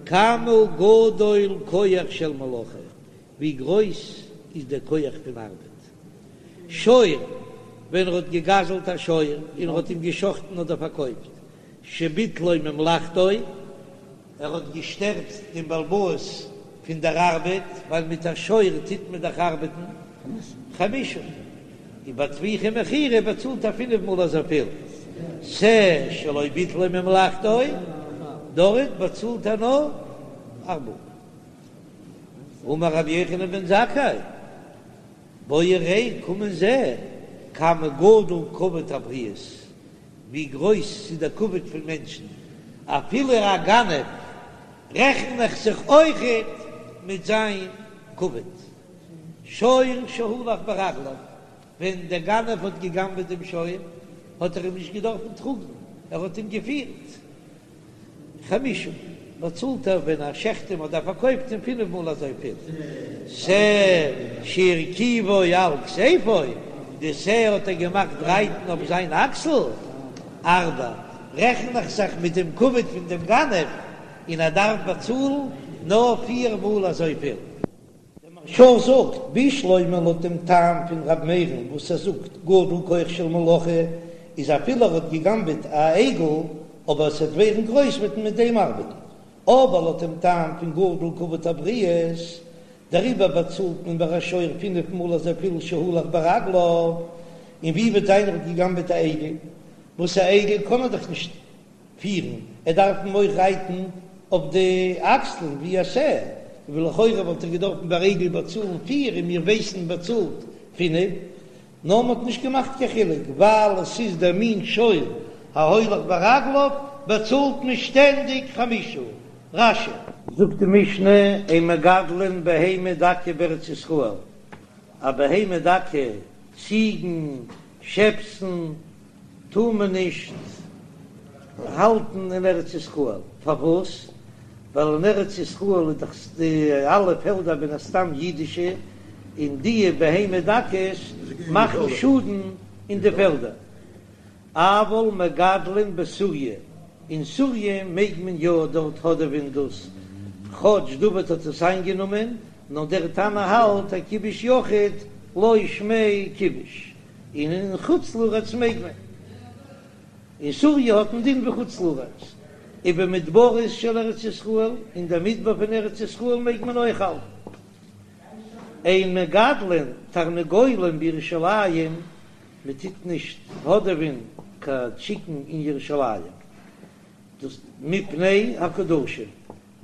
Speaker 1: כמה גדול כח של מלאכה ווי גרויס איז דער כח פון ארבעט. שור, ווען ער האט געגזלט א שור און ער האט אים געשחטן אדער פארקויפט, שביטלו ממלאכתו, ער האט געשטערט דעם בעל הבית פון דער ארבעט, ווייל מיט א שור טוט מען דאך ארבעטן, חמשה, און ביי טביחה ומכירה באצאלט ער פינף מאל אזויפיל, שה שלא ביטלו ממלאכתו, דארט באצאלט ער נאר ארבעה. אמר רבי יוחנן בן זכאי, בוא וראה, קום און זע, כמה גדול כבוד הבריות, ווי גרויס ס'איז דער כבוד פון מענטשן, אפילו א גנב רעכן איך זיך אויכעט מיט זיין כבוד. שור שהלך ברגליו, ווען דער גנב האט געגנבעט דעם שור, האט ער אים נישט געדארפן טראגן, ער האט אים געפירט. חמשה, באצאלט ער ווען ער שעכט אים אדער פארקויפט אים פינף מאל אזויפיל. שה שהרכיבו על כתפו, די שה האט ער געמאכט רייטן אויף זיין אקסל. ארבע, רעכן איך זיך מיט דעם כבוד פון דעם גנב, און ער דארף באצאלן נאר פיר מאל אזויפיל. דער מהרש"א זאגט, בשלמא לויט דעם טעם פון ר' מאיר'ן וואס ער זאגט גדול כח של מלאכה איז אפילו ער האט געגנבעט א עגל אבער עס וועט ווערן גרויס וועט מען מיט דעם ארבעטן, אבער לויט דעם טעם פון גדול כבוד הבריות דעריבער באצאלט מען ביי א שור פינף מאל אזויפיל שהלך ברגליו, און ווי וועט זיין ער האט געגנבעט א עגל וואס א עגל קען ער דאך נישט פירן, ער דארף אים אויך רייטן אויף די אקסלען ווי א שה, ולכאורה וואלט ער געדארפן ביי עגל באצאלן פיר און מיר ווייסן באצאלט פינף, נאר מען האט נישט געמאכט קיין חילוק ווייל עס איז דער מין שור ההולך ברגליו באצאלט מען שטענדיג חמשה. רש"י. זאגט די משנה אין מגדלין בהמה דקה בארץ ישראל, א בהמה דקה, ציגן, שעפסן, טאר מען נישט האלטן אין ארץ ישראל, פארוואס? ווייל אין ארץ ישראל איז דאך די אלע פעלדער מן הסתם אידישע, און די בהמה דקות מאכן שאדן אין די פעלדער. אבל מגדלין בסוריא, אין סוריא מעג מען יא דארט האדעווען דאס, כאטש דוד האט עס איינגענומען, נאר דער תנא האלט אז כיבוש יחיד לא שמיה כיבוש. און אין חוץ לארץ מעג מען. אין סוריא האט מען דין ווי חוץ לארץ. ובמדברות של ארץ ישראל, אין דער מדבר פון ארץ ישראל מעג מען אויך האלטן. אין מגדלין תרנגולים בירושלים, מען טוט נישט האדעווען קיין טשיקן אין ירושלים, דאס מפני הקדשים.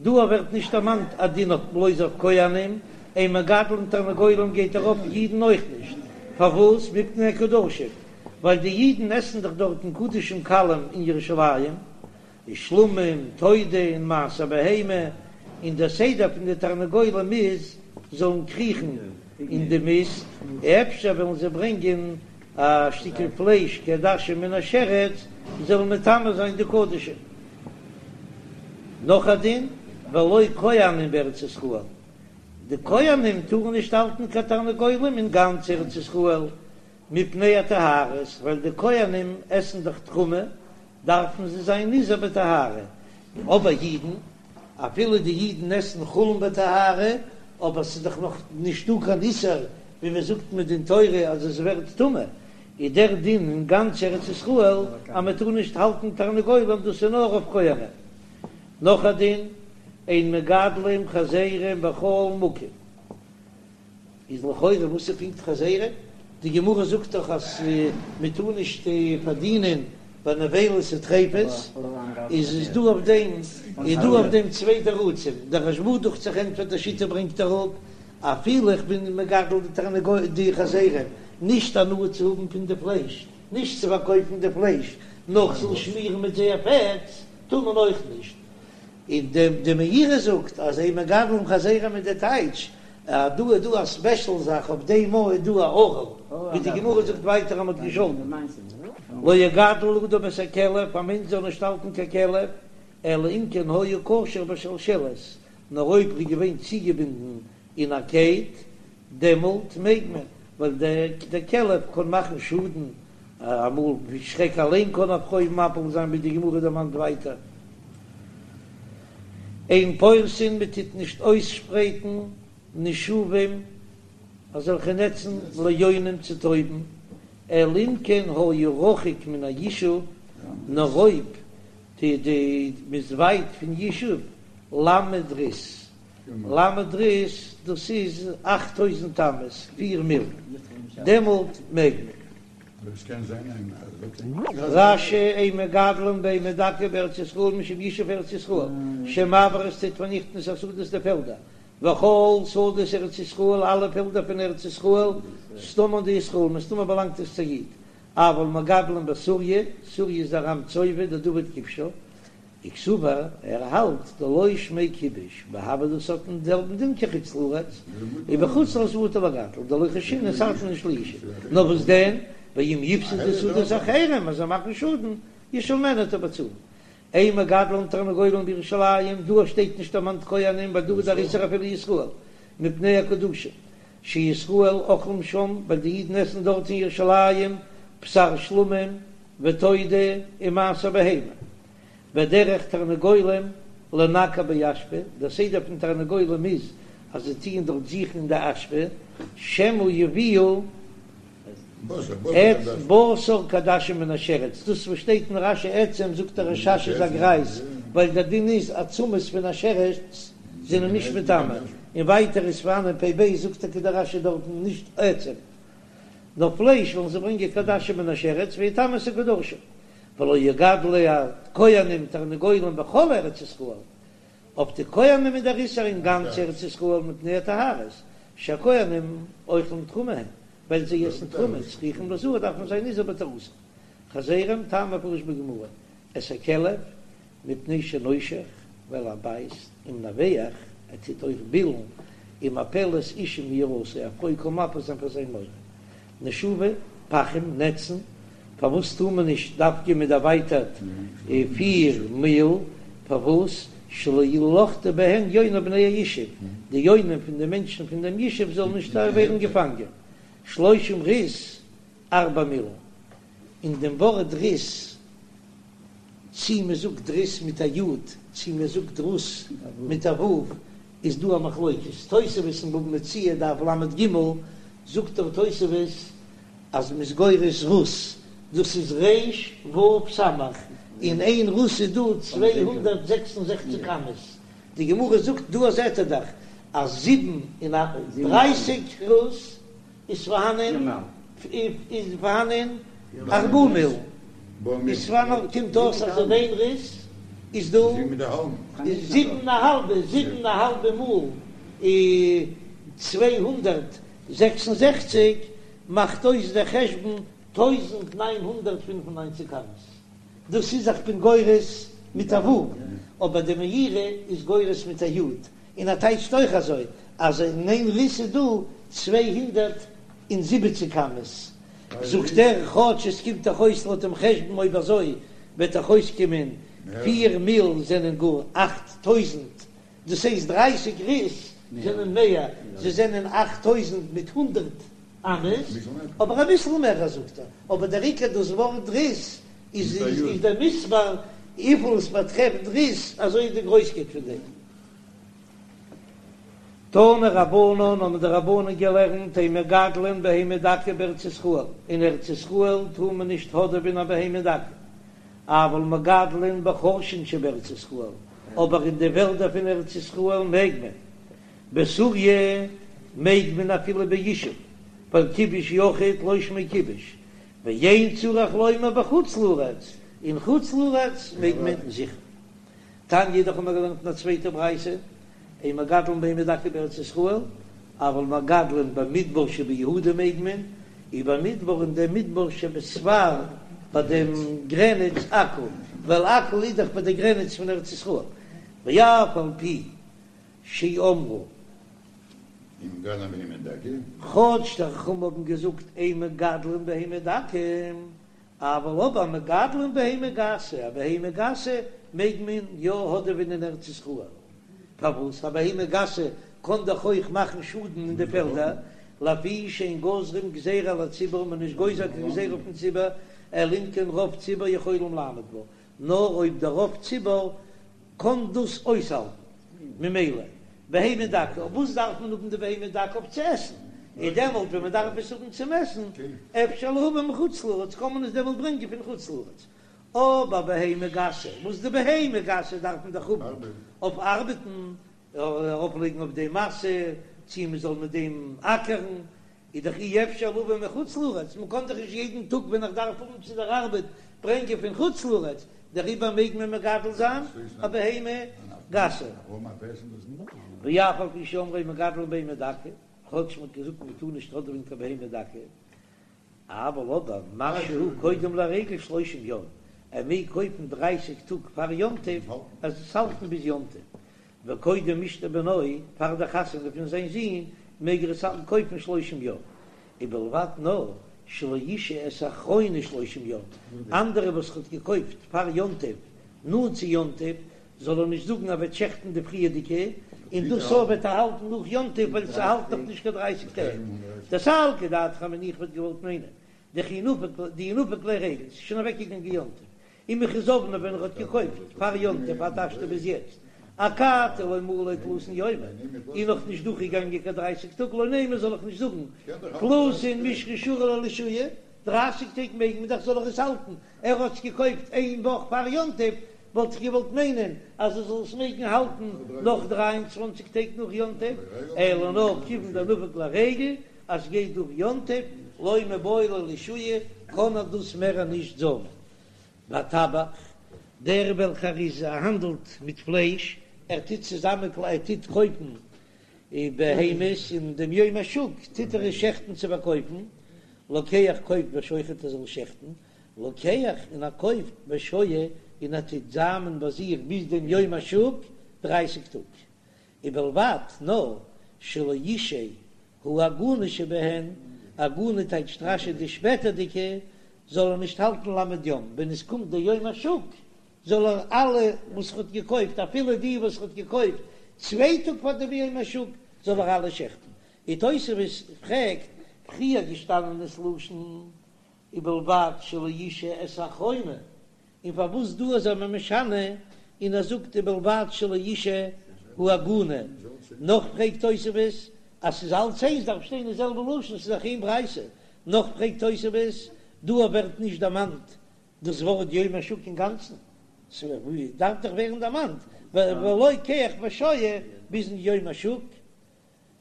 Speaker 1: דא ווערט נישט דערמאנט א דין אויף בלויז אויף כהנים, אין מגדלין תרנגולים גייט ארויף אידן אויך נישט, פארוואס? מפני הקדשים, ווייל די אידן עסן דאך דארטן קדשים קלים אין ירושלים, איז שלמים, תודה און מעשר בהמה, און דער סדר פון די תרנגולים איז זאלן קריכן אין די מיסט, אפשר וועלן זיי ברענגען א שטיקל פלייש כעדשה מן השרץ, זאלן מטמא זיין די קדשים. נאך א דין, ולא כהנים בארץ ישראל, די כהנים טארן נישט האלטן קיין תרנגולים אין גאנץ ארץ ישראל, מפני הטהרות, ווייל די כהנים עסן דאך תרומה, דארפן זיי זיין נזהר בטהרה, אבער אידן, אפילו די אידן עסן חולין בטהרה, אבער ס'איז דאך נאך נישטא קיין איסור ווי מען זאגט מדין תורה אז עס ווערט טמא, איז דער דין אין גאנץ ארץ ישראל אז מען טאר נישט האלטן תרנגולים, דאס איז נאר אויף כהנים. נאך א דין, אין מגדלים חזירים בכל מקום. איז לכאורה וואס איז פונקט חזירים? די גמרא זאגט דאך אז מען טאר נישט פארדינען ביי נבילות וטריפות, איז איז דא אויף דעם איז דא אויף דעם צוויי תירוצים, דער רשב"א דוכט זיך ענטפערט די שיטה ברענגט אראפ, אפילו איך בין מגדל די תרנגול די חזירים נישט הנאה צו האבן פון די פלייש, נישט צו פארקויפן די פלייש, נאר כ'זאל שמירן מיט זייער פעטס, טאר מען אויך נישט. און די מאירי זאגט אז אין מגדלים חזירים איז די טייטש אז דא איז דא א ספעשל זאך אויף דעם איז דא א ערל, ווי די גמרא זאגט ווייטער אז מ'האט געשאלטן לא יגדל אדם את הכלב, א מענטש זאל נישט האלטן קיין כלב, אלא אם כן היה קשור בשלשלת, נאר אויב ער איז געווען צוגעבינדן אין א קייט, דעמאלט מעג מען, ווייל דער כלב קען מאכן שאדן, אמאל ווי שרעק אליין קען א פרוי מפיל זיין ווי די גמרא דערמאנט ווייטער. אין פורסין מען טוט נישט אויסשפרייטן נשובים אזעלכע נעצן ליונים צו טויבן, אלא אם כן היה רחוק מן הישוב, נאר אויב די די מ'איז ווייט פון ישוב ל' ריס, ל' ריס דאס איז אכט טויזנט אמות, פיר מיל, דעמאלט מעג מען. רש"י אין מגדלין בהמה דקה בארץ ישראל משום ישוב ארץ ישראל שמבעיר עס טוט פארניכטן את השדות די פעלדער וכל שדות ארץ ישראל אלע פעלדער פון ארץ ישראל סתמן דישראל מסתמא באלאנגט עס צו א איד אבל מגדלין בסוריא סוריא איז ארם צובה דדוד כיבשה וקסבר, ער האלט דלא שמיה כיבוש, והוי דאס האט דעם זעלבן דין כחוץ לארץ, ובחוץ לארץ מותר לגדל, דלא חיישינן ס'ארט נישט לישוב, נאר וואס דען, ואם יפסידו שדות אחרים אז זיי מאכן שאדן, ישלמנו וועט ער באצאלן. אין מגדלין תרנגולים בירושלים, דא שטייט נישט דערמאנט כהנים ווייל דא איז דער איסור אפילו ישראל, מפני הקדושה, שישראל אוכלים שם, ווייל די אידן עסן דארט אין ירושלים, בשר שלמים, ותודה, ומעשר בהמה. ודרך תרנגולים לנקר באשפה, דער סדר פון תרנגולים איז אז זיי טוען דארט זוכן אין די אשפה, שמא יביאו את בשר כעדשים מן השרץ, דאס וואס שטייט אין רש"י עצם זאגט דער רש"ש איז א גרייז, ווייל דער דין איז עצמות פון א שרץ זענען נישט מטמא, און ווייטער איז פארהאן אין פ"ב זאגט טאקע דער רש"י דארטן נישט עצם, נאר פלייש וועלן זיי ברענגען כעדשים מן השרץ ויטמאו את הקדשים. ולא יגדלו הכהנים תרנגולים בכל ארץ ישראל, אויף די כהנים איז דער איסור אין גאנץ ארץ ישראל מפני הטהרות, שהכהנים אוכלים תרומה הם, ווייל זיי עסן תרומה, צריכים ליזהר דארף מען זיין נזהר בטהרתם. חזירים, טעם המפורש בגמרא, את הכלב, מפני שנושך, ווייל ער בייסט, ומנבח, ער טוט אויך בילן, ומפלת אשה מיראתו, א פרוי קען מפיל זיין פאר זיין מורא. נשובי, פחים, נעצן, פארוואס טאר מען נישט דווקא מיט דערווייטערט פיר מיל, פארוואס שלא ילכדו בהן יוני בני הישוב, די יונים פון די מענטשן פון דעם ישוב זאלן נישט ווערן געפאנגען, שלושים ריס ארבע מיל, אין דעם ווארט ריס, צי מען זאגט ריס מיט א י' צי מען זאגט רוס מיט א ו', איז דא א מחלוקת, תוספות אין בבא מציעא דף ל"ג זאגט דער תוספות אז מ'איז גורס רוס, דאס איז ר' ו' סמך, אין איין רוס איז דא 266 אמות, די גמרא זאגט דא זעט ער דאך אז 37 רוס איז פארהאנען איז פארהאנען ארבעה מיל, איז פארהאנען קומט אויס אז אין איין ריס איז דא זיבן א האלבע זיבן א האלבע מאל 266 מאכט אויס דער חשבון 1995 אמות, דאס איז איך בין גורס מיט א ו', אבער די מאירי איז גורס מיט א י', און ער טייטשט אויך אזוי אז אין איין ריס איז דא 270 אמות, זאגט ער כאטש עס קומט דאך אויס לויט דעם חשבון אויב אזוי וועט דאך אויסקומען פיר מיל זענען גאר 8000, דאס הייסט דרייסיג ריס זענען מער, זיי זענען 8000 מיט הונדערט אמות, אבער אביסל מער זאגט ער, אבער דער עיקר דאס ווארט ריס איז איז דער מספר וויפיל עס באטרעפט ריס אזוי איז די גרויסקייט פון דעם. תנו רבנן האבן די רבנן געלערנט אין מגדלין בהמה דקה בארץ ישראל, אין ארץ ישראל טאר מען נישט האדעווען א בהמה דקה, אבל מגדלין בחורשין שבארץ ישראל, אבער אין די וועלדער פון ארץ ישראל מעג מען. בסוריא. מעג מען אפילו בישוב, ווייל כיבוש יחיד לא שמיה כיבוש, ואין צריך לומר בחוץ לארץ, אין חוץ לארץ מעג מען זיכער. תניא אידך האבן מיר געלערנט אין א צווייטע ברייתא, אין מגדלין בהמה דקה בארץ ישראל, אבל מגדלין במדבר שביהודה מעג מען, ובמדבר אין דעם מדבר שבספר ביי דעם גרעניץ עכו, ווייל עכו איז דאך ביי די גרעניץ פון ארץ ישראל, ואף על פי שאמרו.
Speaker 2: אין מגדלין בהמה דקה.
Speaker 1: כאטש די חכמים האבן געזאגט אין מגדלין בהמה דקה, אבל אבער מגדלין בהמה גסה, א בהמה גסה מעג מען יא האדעווען אין ארץ ישראל, פארוואס? א בהמה גסה קען דאך אויך מאכן שאדן אין די פעלדער, לפי שאין גוזרים גזירה על הציבור, מען איז נישט גוזר קיין גזירה אויפן ציבור, אלא אם כן רוב ציבור יכולים לעמוד בה, נאר אויב דער רוב ציבור קען דאס אויסהאלטן, ממילא בהמה דקה, אויף וואס דארף מען האבן די בהמה דקה? אויף צו עסן, און דעמאלט ווען מען דארף עס האבן צום עסן, אפשר להביא מחוץ לארץ, קען מען עס דעמאלט ברענגען פון חוץ לארץ, אבער בהמה גסה, וואס די בהמה גסה דארף מען דאך האבן אויף ארבעטן, ארויפלייגן אויף דעם משא, צי מען זאל מיט דעם אקערן, איז דאך אי אפשר להביא מחוץ לארץ, מען קען דאך נישט יעדן טאג ווען איך דארף האבן צו דער ארבעט ברענגען פון חוץ לארץ, דעריבער מעג מען מגדל זיין א בהמה גסה. ואף על פי שאמרו אין מגדלין בהמה דקה, כאטש מען האט געזאגט מען טאר נישט האדעווען קיין בהמה דקה, אבל אבער משהה קודם לרגל שלושים יום, ער מעג קויפן דרייסיג טאג פאר יום טוב, ער זאל עס האלטן ביז יום טוב, וקודם משתה בנו, פאר די חתונה פון זיין זון, מעג ער עס האלטן קויפן שלושים יום, ובלבד נאר שלא ישהה את האחרונה שלושים יום, אנדערע וואס ער האט געקויפט פאר יום טוב, נאנט צו יום טוב, זאל ער נישט זאגן ער וועט שעכטן די פריערדיגע, און דאס אויך וועט ער האלטן נאך יום טוב ווייל ס'האלט נאך נישט קיין דרייסיג טעג. דסלקא דעתך אמינא איך וואלט געוואלט מיינען דכי נפק דאי נפק ליה רגל, ס'איז שוין אוועקגעגאנגען יום טוב, ומכי זבנה ווען ער האט געקויפט פאר יום טוב עד השתא ביז יעצט, אכתי לא מלו תלתין יומי, איז נאך נישט דורכגעגאנגען קיין דרייסיג טאג, לא נימא זאל איך נישט זאגן תלתין מישרא שרי ליה לשהויי, דרייסיג טעג מעג מען דאך זאל איך עס האלטן, ער האט עס געקויפט איין וואך פאר יום טוב, וואלט איך געוואלט מיינען אז ער זאל עס מעגן האלטן נאך 23 טעג נאך יום טוב, אלא נאר כיוון דנפק ליה רגל אז ס'גייט דורך יום טוב, לא מיבעי ליה לשהויי, קען ער דאס מער נישט זאמען. והטבח, דער וועלכער איז האנדלט מיט פלייש, ער טוט צוזאמען ער טוט קויפן בהמות אין דעם יום השוק טוט ער עס שעכטן צו פארקויפן, לוקח קויפט ושוחט ער זאל שעכטן, לוקח און ער קויפט ושוהה און ער טוט זאמען ביי זיך ביז דעם יום השוק דרייסיג טאג, ובלבד נאר שלא ישהה העגונה שבהן, עגונה טייטשט רש"י די שפעטערדיגע, זאל ער נישט האלטן ל' יום, ווען עס קומט דער יום השוק זאל ער אלע וואס ער האט געקויפט אפילו די וואס ער האט געקויפט צוויי טאג פאר דעם יום השוק זאל ער אלע שעכטן, און תוספות פרעגט, פריער געשטאנען איז לשון ובלבד שלא ישהה את האחרונה, און פארוואס דא איז ער משנה און ער זאגט ובלבד שלא ישהה העגונה, נאך פרעגט תוספות אז ס'איז אלץ איינס דארף שטיין די זעלבע לשון ס'איז דאך איין ברייתא, נאך פרעגט תוספות דא ווערט נישט דערמאנט דאס ווארט יום השוק אינגאנצן, ס'דארף דאך ווערן דערמאנט ולוקח ושוהה ביזן יום השוק.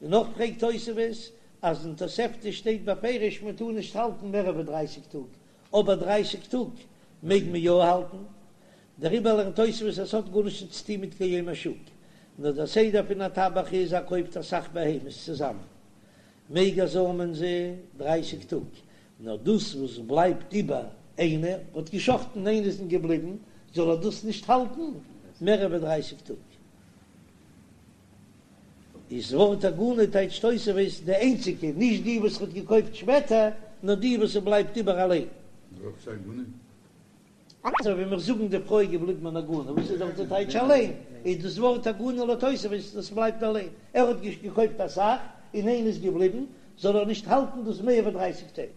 Speaker 1: און נאך פרעגט תוספות אז אין תוספתא שטייט בפירוש מען טאר נישט האלטן מער ווי דרייסיג טאג, אבער דרייסיג טאג מעג מען יא האלטן, דעריבער לערנט תוספות אז עס האט גארנישט צו טון מיט קיין יום השוק, נאר דער סדר פון א טבח איז ער קויפט אסאך בהמות צוזאמען מעג ער זאמען זיי דרייסיג טאג, נאר דאס וואס בלייבט איבער איינער האט געשחטן איינע איז געבליבן זאל ער דאס נישט האלטן מער ווי דרייסיג טאג. איז ווארט עגונה טייטשט תוספות די איינציגע, נישט די וואס ער האט געקויפט שפעטער, נאר די וואס ס'בלייבט איבער אליין. אזוי ווי מיר זאגן די פרוי איז געבליבן אן עגונה, וואס איז דאך די טייטש אליין, איז דאס ווארט עגונה לויט תוספות דאס בלייבט אליין, ער האט געקויפט אסאך און איינע איז געבליבן, זאל ער נישט האלטן דאס מער ווי דרייסיג טעג.